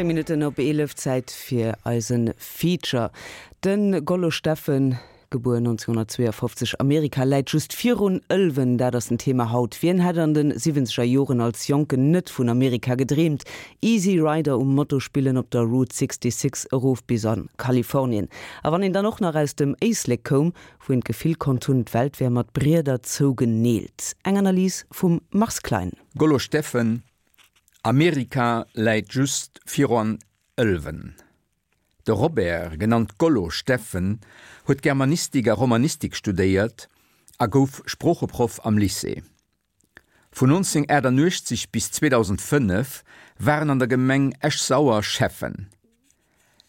10 Minutten op 11, Zäit fir eise Feature. De Gollo Steffen, gebuer 1952, Amerika läit just virun Ëlwen, dat ass den Thema haut. Wien hätt an de siwwenzeger Joren als Jonken net vun Amerika gedreemt? Easy Rider um Moto spillen op der Route 66 erof bis a Kalifornien. A wann een dann och nach aus dem Éislek koum, wou een d'Gefill konnt hunn, d'Welt wär mat Brieder zougeneelt. Eng Analys vum Mars Klein. Gollo Steffen, Amerika läit just viruan Ëlwen. De Robert, genannt Gollo Steffen, huet Germanistik a Romanistik studéiert a gouf Sproocheproff am Lycée. Vun 1988 bis 2005 war en an der Gemeng Esch-Sauer Schäffen.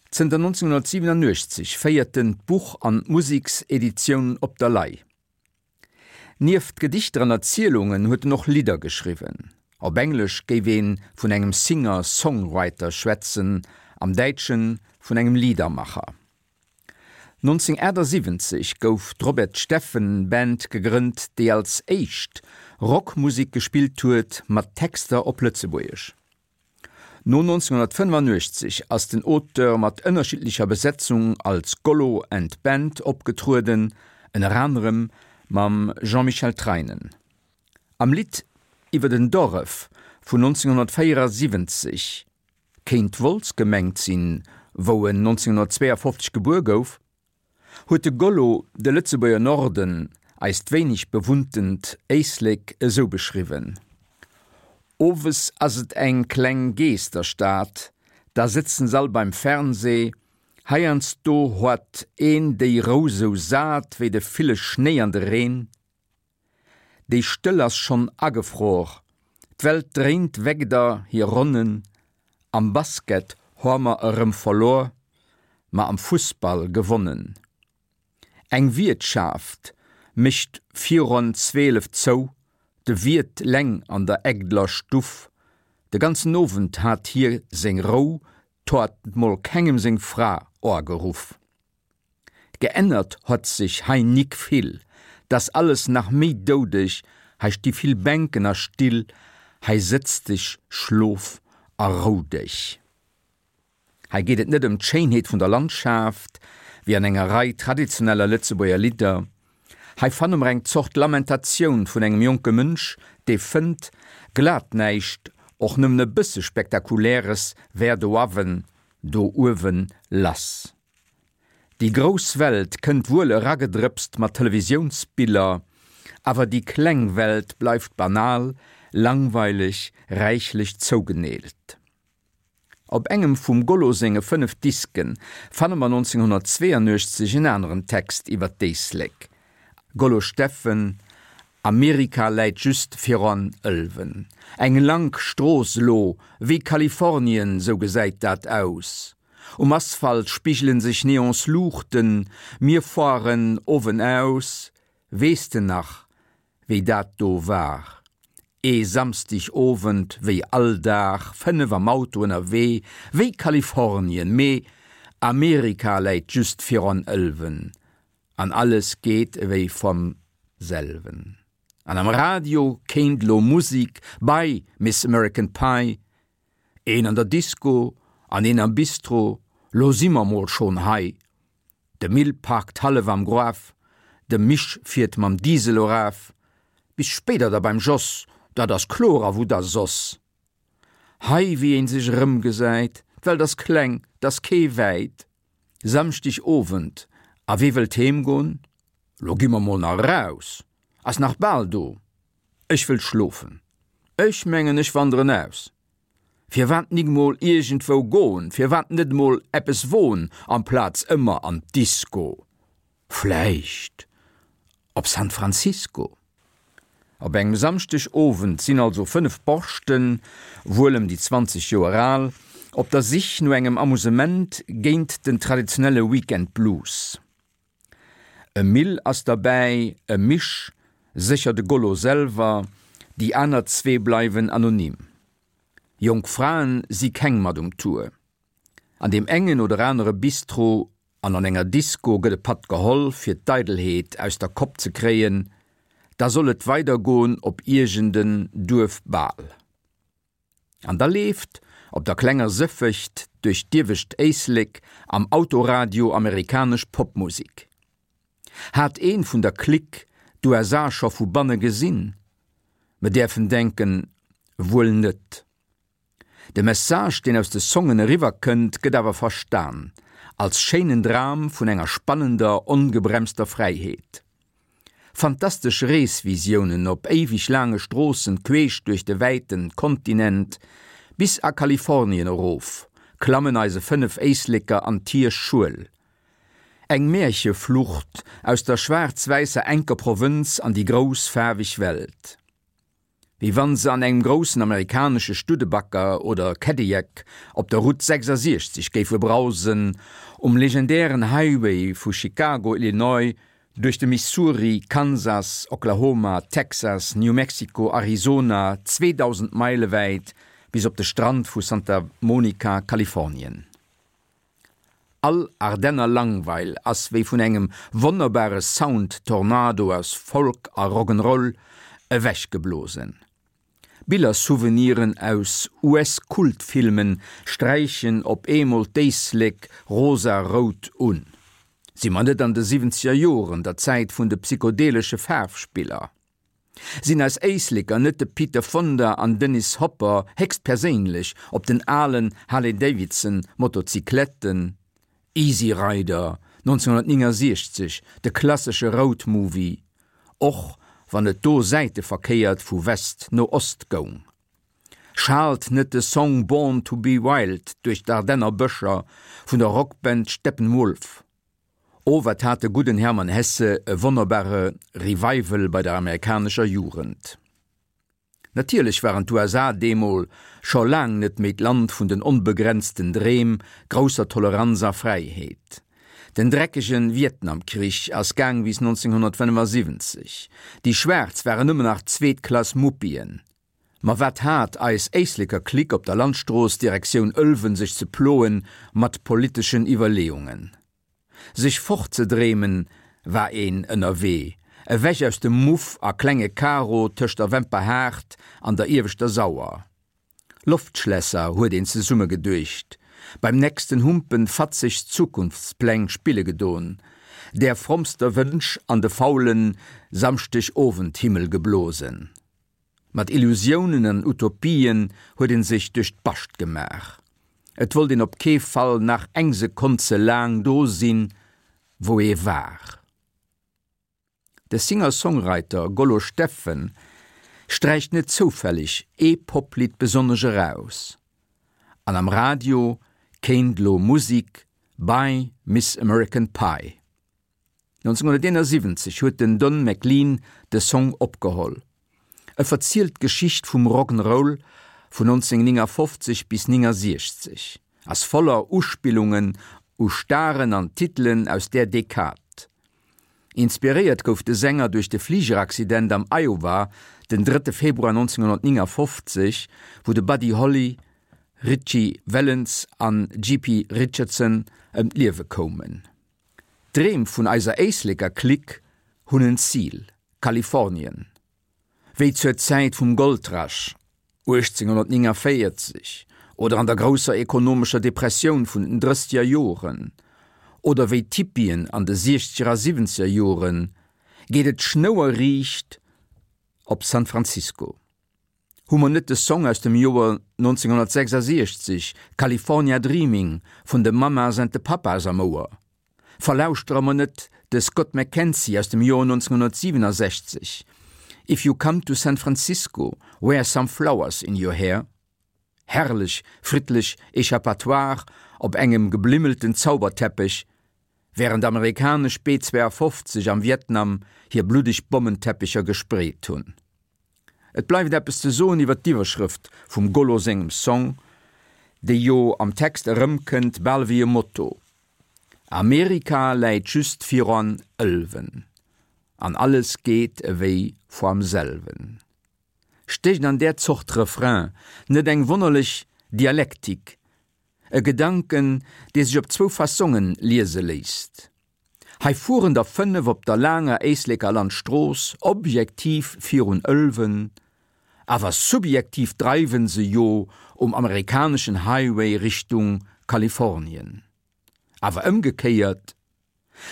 Zënter 1987 féiert en d'Buch an d'Musekseditioun Op der Lay. Nieft Gedichter an Erzielungen huet en och Lidder geschriwwen. Op Englesch géif ee vun engem Singer-Songwriter schwätzen, am Däitsche vun engem Liedermacher. 1978 gouf d'Robert Steffen Band gegrënnt, déi als éischt Rockmusek gespillt huet mat Texter op Lëtzebuergesch. No 1985 ass den Auteur mat ënnerschiddlecher Besetzung als Gollo and Band opgetrueden, ënner anerem mam Jean-Michel Treinen. Am Lidd iwwer den Doref vun 1974 kéint Wolz gemengt sinn, wou en 1952 gebuer gouf, huet de Gollo de Lëtzebuerger Norden, eist wéineg bewunntent Éislek, esou beschriwwen, Owes ass et eng kleng Geesterstad, da sëtzen s'all beim Fernseh, heiansdo hoat een déi Rou sou sat wéi de ville Schnéi an de Reen. Déi Stëll ass schonn agefror, d'Welt dréint wegder hir Ronnen, am Basket hor mer erëm verlor, ma am Fussball gewonnen. Eng Wiertschaft mécht viron 12 zou, de Wiert leng an der Egdeler Stuff, de ganzen Owend hat hie seng Rou, 't hoat mol kengem seng Fra oageruff. Geännert hott sech hei nik vill, 't ass alles nach méi doudeg, hei sti vill Bänken a Still, hei sëtz dech, schlof a rou dech. Hei geet et net ëm d'Schéinheet vun der Landschaft, wéi an enger Rei traditioneller Lëtzebuerger Lidder. Hei fanne mer eng Zort Lamentatioun vun engem jonke Mënsch, dee fënnt, glat näischt, och nëmmen e bësse Spektakuläres wär doawen, do uewen lass. Déi grouss Welt kënnt wuel eragedrëpst mat Televisiounsbiller, awer déi kleng Welt bleift banal, langweileg, räichlech zougeneelt. Op engem vum Gollo senge 5 Disken fanne mer 1982 en aneren Text iwwer d'Éislek, Gollo Steffen, Amerika läit just viran Ëlwen. Eng lank Strooss elo, wéi Kalifornien, sou gesäit dat aus. Um Asphalt spigelen sech Neonsluuchten, mir foaren owen aus, weess de nach wéi dat do war? Ee Samsdig Owend wéi all Dag, 5 am Auto ënnerwee, wéi Kalifornien, mee Amerika läit just viron Ëlwen an alles geet ewéi vom selwen. An am Radio kéint lo Musik bei Miss American Pie, Een an der Disco an een am Bistro, lo si mer mol schon hei. De Mill parkt hallef am Gruaf, de Misch fiert mam Diesel eraf. Bis spéider da beim Jos, dat ass kloer a wou da soss? Hei wéi een sech erëmgesäit, d'Welt ass kleng, 't ass kee wäit. Samschdeg Owend, a wee wëllt heem gon? Lo gi mer mol nach eraus, ass nach bal do. Ech wëll schlofen. Ech mengen ech wanderen aus. Firwat nik mol iergendwou gon, firwat net mol eppes won amplaz ëmmer an d'Disco? Vläicht op San Francisco? Op engem Samschdeg Owend sinn also 5 Borschten, wuel ëm déi 20 Joer al, op der Sich no engem Amusement géint den traditionelle Weekend Blues. E Mill ass derbäi, e Misch, sécher de Gollo selwer, déi aner zwee bleiwen anonym. Jonk Fraen si keng mat um Tour. An deem engen oder anere Bistro an an enger Disco gëtt e Patt geholl, fir d'Eidelheet aus der Kopp ze kréien, da soll et weidergoen op iergend en Duerfbal. An da leeft op der klenger Sëffegt duerch d'iewescht Éislek am Autoradio amerikanesch Popmusik. Hat een vun der Clique d'USA scho vu banne gesinn? Mer däerfen denken, wuel net. De Message, deen aus de Songen eriwwer kënnt, gëtt awer verstan als schéinen Dram vun enger spannender, ongebremster Fräiheet. Fantastesch Reesvisiounen op éiweg laange Stroossen queesch duerch de wäiten Kontinent bis a Kalifornien erof, klammen eise 5 Éisleker an d'hir Schuel. Eng Märcheflucht aus der schwaarz-wäisser enker Provënz an déi grouss faarweg Welt. Wéi wann se an engem groussen amerikanesche Studebaker oder Cadillac op der Route 66 géife brausen, um legendären Highway vu Chicago, Illinois, duerch de Missouri, Kansas, Oklahoma, Texas, New Mexico, Arizona, 2.000 Meile wäit bis op de Strand vu Santa Monica, Kalifornien. All Ardenner Langweil ass wéi vun engem wonnerbare Sound-Tornado aus Folk a Rock'n'Roll ewechgeblosen. Biller-Souveniren aus US-Kultfilmen sträichen op eemol d'Éislek rosa-rout un. Si mer net an de siwwenzeger Joren, der Zäit vun de psychodelesche Faarfspiller? Sinn eis Éisleker net de Peter Fonda an Dennis Hopper héchstperséinlech op den alen Harley Davidson Motocycletten? Easy Rider, 1969, de klassesche Road Movie, och wann et do säiteverkéiert vu West no Ost goung. Schaalt net de Song Born to be Wild duerch d'Ardenner Bëscher vun der Rockband Steppenwolf? O wat hat de gudden Hermann Hesse e wonnerbare Revival bei der amerikanescher Jugend. Natierlech waren d'USA deemol scho laang net méi d'Land vun den onbegrenzten Dreem, grousser Toleranz a Fräiheet. Den dreckegen Vietnamkrich ass gaang bis 1975. Déi Schwaarz waren nëmmen nach zweetklass Muppien. Ma wat hat eis Éisleker Clique op der Landstrooss Direktioun Ëlwen sech ze ploen mat politeschen Iwwerleeungen? Sech fortzedreemen war een ënnerwee, ewech aus dem Muff a klenge Karo tëscht der Wemperhaart an der ieweschter Sauer. Loftschlässer huet een zesumme geduecht, beim nächsten Humpen fatzeg Zukunftspläng spille gedon, där frommster Wënsch an de faulen Samschdegowendhimmel geblosen. Mat Illusiounen an Utopien huet een sech duerch d'Bascht gemaach. Et wollt een op kee Fall nach eng Sekonn ze laang do sinn, wou ee war. De Singer-Songwriter Gollo Steffen sträicht net zoufälleg ee Poplidd besonnesch eraus. An am Radio kéint lo Musik Bye Miss American Pie. 1971 huet den Don McLean de Song opgeholl. E verzielt d'Geschicht vum Rock'n'Roll vun 1959 bis 69, ass voller Uspillungen u Staren an Titelen aus där Dekad. Inspiréiert gouf de Sänger duerch de Fligeraccident am Iowa den drëtte Februar 1959, wou de Buddy Holly, Ritchie Valens an JP Richardson ëm d'Liewe koumen. D'Dreem vun eiser Éisleker Clique hunn en Zil, Kalifornien. Wéi zur Zäit vum Goldrush 1849 oder an der grousser ekonomescher Depressioun vun den drësseger Joren oder wéi d'Hippien an de siechzeger a siwwenzeger Joren, geet et schnouerriicht op San Francisco. Hu mer net de Song aus dem Joer 1966, California Dreaming vun de Mamas and the Papas am Ouer? Verlauschtere mer net de Scott McKenzie aus dem Joer 1967, If you come to San Francisco, wear some flowers in your hair? Herrlech friddlech Échappatoire op engem geblimmelten Zauberteppech, wärend amerikanesch B-52 am Vietnam hir bluddeg Bommenteppecher gespreet hunn. Et bleift eppes ze soen iwwer d'Iwwerschrëft vum Gollo sengem Song, déi jo am Text erëmkënnt, bal wéi e Motto, Amerika läit just viran Ëlwen, an alles geet ewéi voam selwen. Stécht an där Zort Refrain net eng wonnerlech Dialektik, e Gedanken, dee sech op zwou Fassongen liese léisst? Hei fueren der 5 op der laanger Éisleker Landstrooss, objektiv virun Ëlwen. Awer subjektiv dreiwen se jo um amerikaneschen Highway Richtung Kalifornien. Awer ëmgekéiert,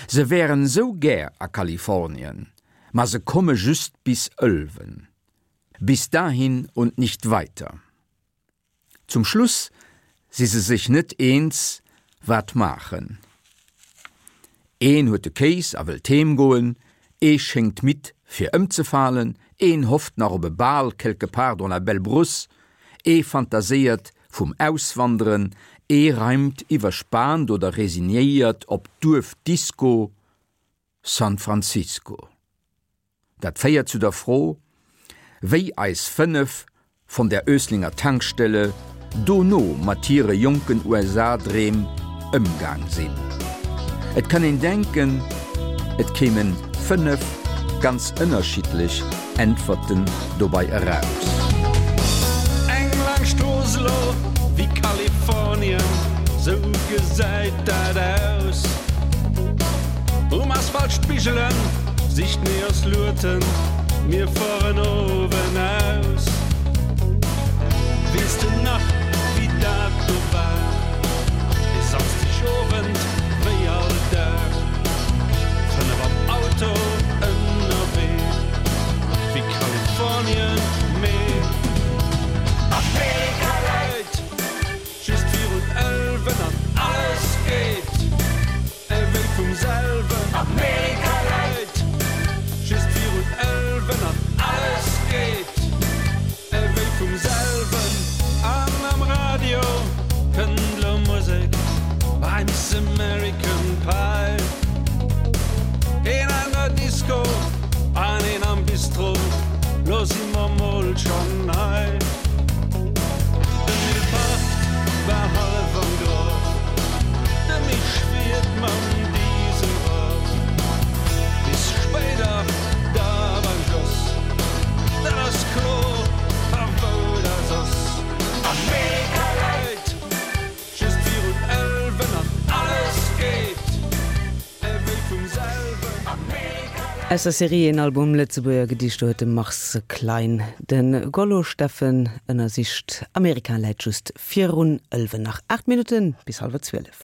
se wären sou gär a Kalifornien, ma se komme just bis Ëlwen. Bis dahin und nicht weiter. Zum Schluss si se sech net eens, wat maachen. Een huet de Kéis a wëllt heem goen, ee schéngt midd fir ëmzefalen, een hofft nach op e Bal quelque part dans la belle brousse, ee fantaséiert vum Auswanderen, ee reimt iwwerspaant oder resignéiert op d'Duerfdisco San Francisco. Dat féiert zu der Fro, wéi eis 5 von der Öslinger Tankstelle dono mat hire jonken USA-Dreem ëmgaang sinn. Et kann een denken, et kéimen 5 ganz ënnerschiddlech Äntwerten dobei eraus. Eng laang Strooss elo wéi Kalifornien, sou gesäit dat aus. Um Asphalt Spigelen, sicht mir ass Lueten, mir fueren owen aus. Weess de nach wéi dat do war, e Samsdeg Owend wéi all Dag, 5 am Auto ënnerwee, wéi Kalifornien, mee Amerika läit just virun Ëlwen an alles geet. Ewéi vum selwen. Amerika läit just virun Ëlwen an alles geet ewéi vum selwen. An am Radio kënnt lo Musek, I miss American Pie. Een an der Disco an een am Bistro, lo si mer mol schonn hei. De Mill parkt war hallef am Grof, de Misch fiert mam Diesel rof. Bis spéider da beim Jos, dat ass kloer, a wou da soss? Amerika läit just virun Ëlwen an alles geet. Aus der Serie Een Album Lëtzebuerger Gedichter huet de Mars Klein de Gollo Steffen ënnersicht. Amerika läit just virun Ëlwen. Nach 8 Minutten bis hallwer 12.